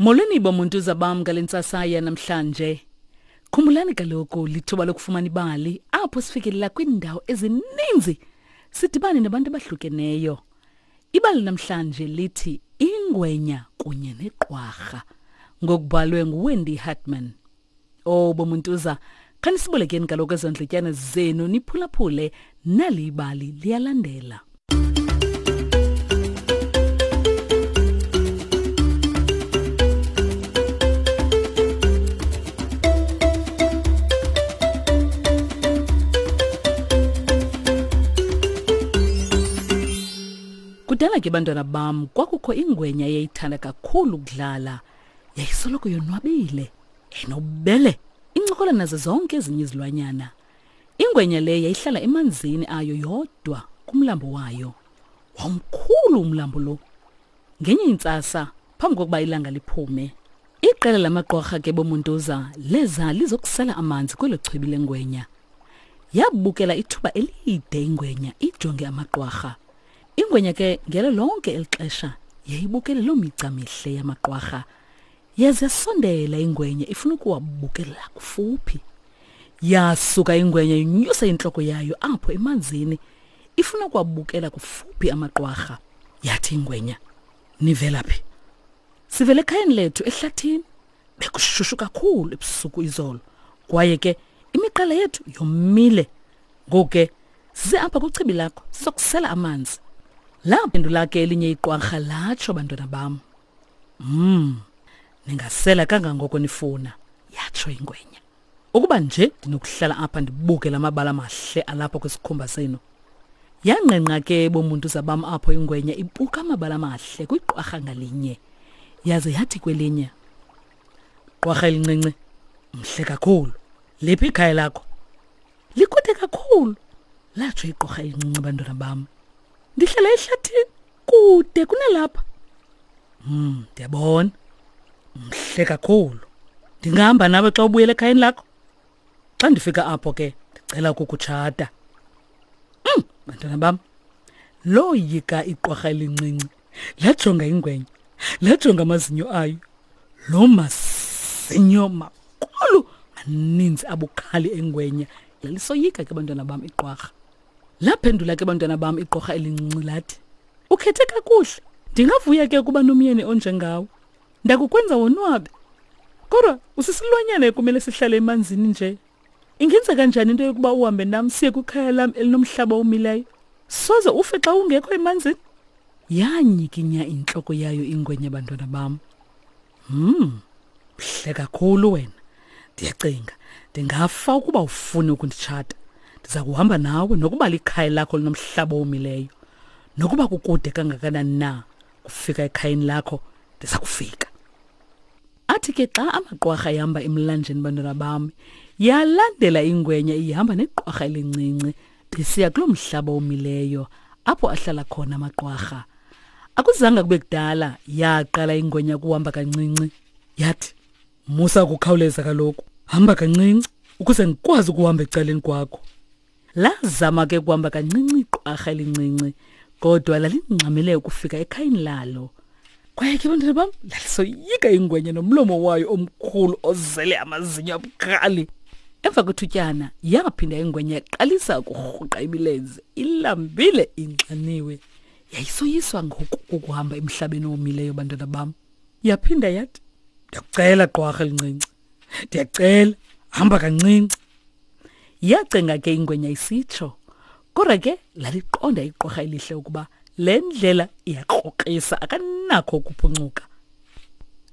Molweni bomuntu bam ngale ntsasa yanamhlanje. Khumbulani kaloku lithuba lokufumana ibali apho sifikelela kwiindawo ezininzi sidibane nabantu abahlukeneyo. Ibali namhlanje lithi Ingwenya kunye neqwarha ngokubhalwe nguWendy Hartman. Oh bomuntuza, khanisibolekeni kaloku ezo ndletyana zenu niphulaphule nali ibali liyalandela. Kudala ke bantwana bam kwakukho ingwenya eyayithanda kakhulu ukudlala. Yayisoloko yonwabile, enobubele, incokola nazo zonke ezinye izilwanyana. Ingwenya le yayihlala emanzini ayo yodwa kumlambo wayo. Wawumkhulu umlambo lo. Ngenye intsasa, phambi kokuba ilanga liphume, iqela lamaqwarha ke bomuntuza leza lizokusela amanzi kwelo chibi lengwenya. Yabukela ithuba elide ingwenya ijonge amaqwarha. Ingwenya ke ngelo lonke eli xesha yayibukele loo migca mihle yamaqwarha. Yaze yasondela ingwenya ifuna ukuwabukela kufuphi. Yasuka ingwenya inyusa intloko yayo apho emanzini ifuna ukuwabukela kufuphi amaqwarha. Yathi ingwenya, "Nivela phi?" Sivele ekhayeni lethu ehlathini. Bekushushu kakhulu ebusuku izolo. Kwaye ke imiqala yethu yomile. Ngoku ke size apha kwichibi lakho sizokusela amanzi. Laphendula ke elinye iqwarha latsho bantwana bam. Mm. Ningasela kangangoko nifuna, yatsho ingwenya. Ukuba nje ndinokuhlala apha ndibuke la mabala amahle alapha kwisikhumba senu. Yangqengqa ke bomuntu zabam apho ingwenya ibuka amabala amahle kwiqwarha ngalinye. Yaze yathi kwelinye, Qwarha elincinci, mhle kakhulu. Liphi ikhaya lakho? Likude kakhulu, latsho iqwarha elincinci bantwana bam. Ndihlala ehlathini kude kunalapha. Hmm, ndiyabona. Mhle kakhulu. Ndingahamba nawe xa ubuyela ekhayeni lakho? Xa ndifika apho ke ndicela ukukutshata. Mm, bantwana bam. Loyika iqwarha elincinci. Lajonga ingwenya. Lajonga amazinyo ayo. Lo mazinyo makhulu maninzi abukhali engwenya. Lalisoyika ke bantwana bam iqwarha. Laphendula ke bantwana bam iqorha elincinci lathi, Ukhethe kakuhle. Ndingavuya ke ukuba nomyeni onjengawe. Ndakukwenza wonwabe. Kodwa usisilwanyana ekumele sihlale emanzini nje. Ingenzeka kanjani into yokuba uhambe nam siye kwikhaya lam elinomhlaba omileyo? Soze ufe xa ungekho emanzini? Yanyikinya intloko yayo ingwenya bantwana bam. Hmm, mhle kakhulu wena. Ndiyacinga ndingafa ukuba ufune ukunditshata. Ndiza kuhamba nawe nokuba likhaya lakho linomhlaba owomileyo. Nokuba kukude kangakanani na kufika ekhayeni lakho, ndiza kufika. Athi ke xa amaqwarha ehamba emlanjeni bantwana bam, yalandela ingwenya ihamba neqwarha elincinci besiya kuloo mhlaba omileyo apho ahlala khona amaqwarha. Akuzanga kube kudala yaqala ingwenya kuhamba kancinci. Yathi, "Musa ukukhawuleza kaloku, hamba kancinci ukuze ndikwazi ukuhamba ecaleni kwakho." Lazama ke kuhamba kancinci iqwarha elincinci, kodwa lalingxamele ukufika ekhayeni lalo. Kwaye ke bantwana bam, lalisoyika ingwenya nomlomo wayo omkhulu ozele amazinyo abukhali. Emva kwethutyana yaphinda ingwenya yaqalisa ukurhuqa imilenze, ilambile inxaniwe. Yayisoyiswa ngoku kukuhamba emhlabeni owomileyo bantwana bam. Yaphinda yathi, Ndiyakucela qwarha elincinci, ndiyacela hamba kancinci. Yacenga ke ingwenya isitsho. Kodwa ke laliqonda iqwarha elihle ukuba le ndlela iyakrokrisa akanakho ukuphuncuka.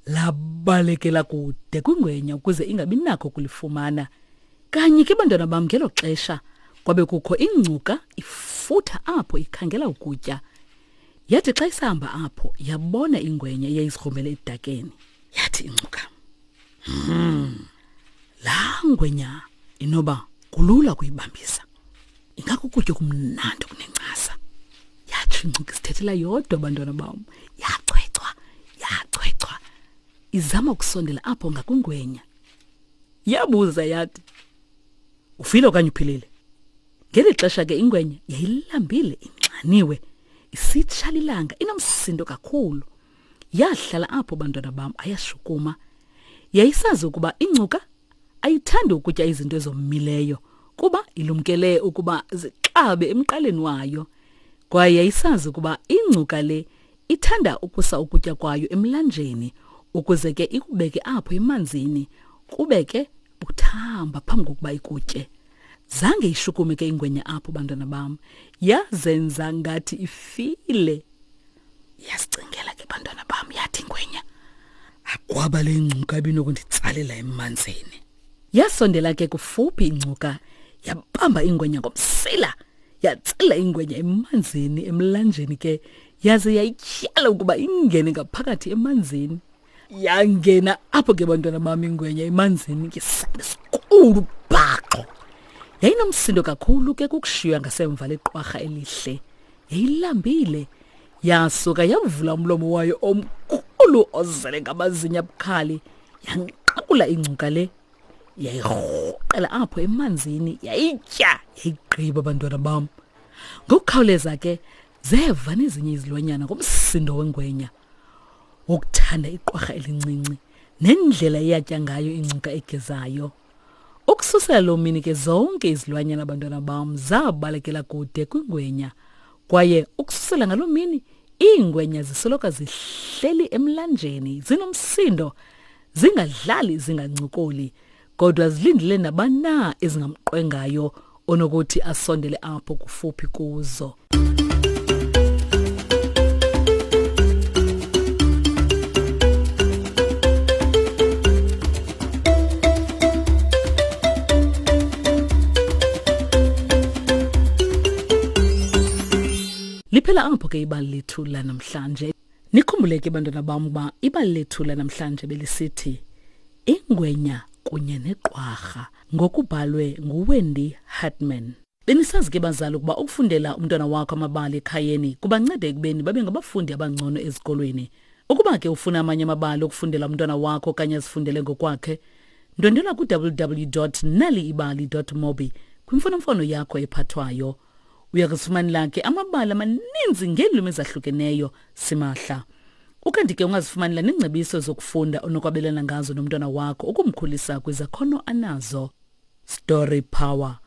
Labalekela kude kwingwenya ukuze ingabi nakho ukulifumana. Kanye ke bantwana bam ngelo xesha kwabe kukho ingcuka ifutha apho ikhangela ukutya. Yathi xa isahamba apho yabona ingwenya eyayizigrumbele edakeni. Yathi ingcuka, "Hmm, laa ngwenya inoba kulula ukuyibambisa. Ingakukutya okumnandi okunencasa." Yatsho ingcuka isithethela yodwa bantwana bam. Yachwechwa, yachwechwa izama ukusondela apho ngakwingwenya. Yabuza yathi, Ufile okanye uphilile? Ngeli xesha ke ingwenya yayilambile inxaniwe, isitsha lilanga inomsindo kakhulu. Yahlala apho bantwana bam ayashukuma. Yayisazi ukuba ingcuka ayithandi ukutya izinto ezomileyo kuba ilumkele ukuba zixabe emqaleni wayo. Kwaye yayisazi ukuba ingcuka le ithanda ukusa ukutya kwayo emlanjeni ukuze ke ikubeke apho emanzini kube ke buthamba phambi kokuba ikutye. Zange ishukume ke ingwenya apho bantwana bam, yazenza ngathi ifile. Yasicingela ke bantwana bam yathi ingwenya, akwaba le ngcuka ibinokunditsalela emanzini. Yasondela ke kufuphi ingcuka yabamba ingwenya ngomsila yatsala ingwenya emanzini emlanjeni ke yaze yayityhala ukuba ingene ngaphakathi emanzini. Yangena apho ke bantwana bam ingwenya emanzini ngesandla esikhulu bhaxo. Yayinomsindo kakhulu ke kukushiywa ngasemva leqwarha elihle. Yayilambile. Yasuka yavula umlomo wayo omkhulu ozele ngamazinyo abukhali yanqakula ingcuka le. Yayirhuqela apho emanzini yayitya yayigqiba bantwana bam. Ngokukhawuleza ke zeva nezinye izilwanyana ngomsindo wengwenya wokuthanda iqwarha elincinci nendlela eyatya ngayo ingcuka egezayo. Ukususela loo mini ke zonke izilwanyana bantwana bam zabalekela kude kwingwenya kwaye ukususela ngaloo mini iingwenya zisoloko zihleli emlanjeni zinomsindo zingadlali zingancokoli kodwa zilindele nabani na ezingamqwengayo onokuthi asondele apho kufuphi kuzo. Liphela apho ke ibali lethu lanamhlanje. Nikhumbule ke bantwana bam ukuba ibali lethu lanamhlanje belisithi Ingwenya kunye neqwarha ngokubhalwe nguWendy Hartman. Benisazi ke bazali ukuba ukufundela umntwana wakho amabali ekhayeni kubanceda ekubeni babe ngabafundi abangcono ezikolweni. Ukuba ke ufuna amanye amabali okufundela umntwana wakho okanye azifundele ngokwakhe, ndwendwela ku-www.naliibali.mobi kwimfonomfono yakho ephathwayo. Uya kuzifumanela ke amabali amaninzi ngeelwimi ezahlukeneyo simahla. Ukanti ke ungazifumanela neengcebiso zokufunda onokwabelana ngazo nomntwana wakho ukumkhulisa kwizakhono anazo. Story Power.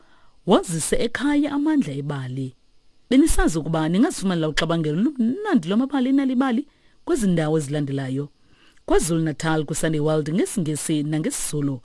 Wazise ekhaya amandla ebali. Benisazi ukuba ningazifumanela uxabangelo lumnandi lwamabali enalibali kwezi ndawo ezilandelayo. KwaZulu-Natal kwiSunday World ngesiNgesi nangesiZulu.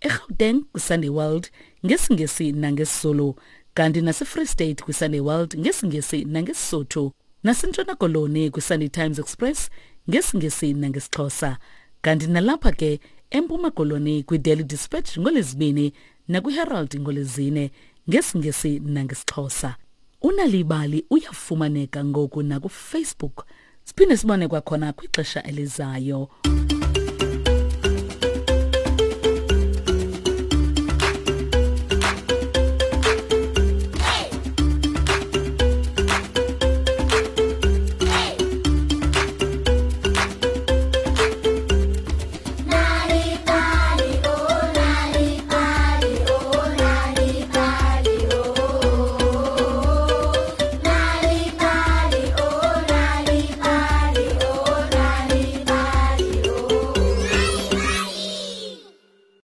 eGauteng kwiSunday World ngesiNgesi nangesiZulu. Kanti naseFree State kwiSunday World ngesiNgesi nangeSisotho. NaseNtshona Koloni kwiSunday Times Express ngesiNgesi nangesiXhosa. Kanti nalapha ke eMpuma Koloni kwiDaily Dispatch ngoLwezibini nakwiHerald ngoLwezine ngesiNgesi nangesiXhosa. Unalibali uyafumaneka ngoku nakuFacebook. Siphinde sibone kwakhona kwixesha elizayo.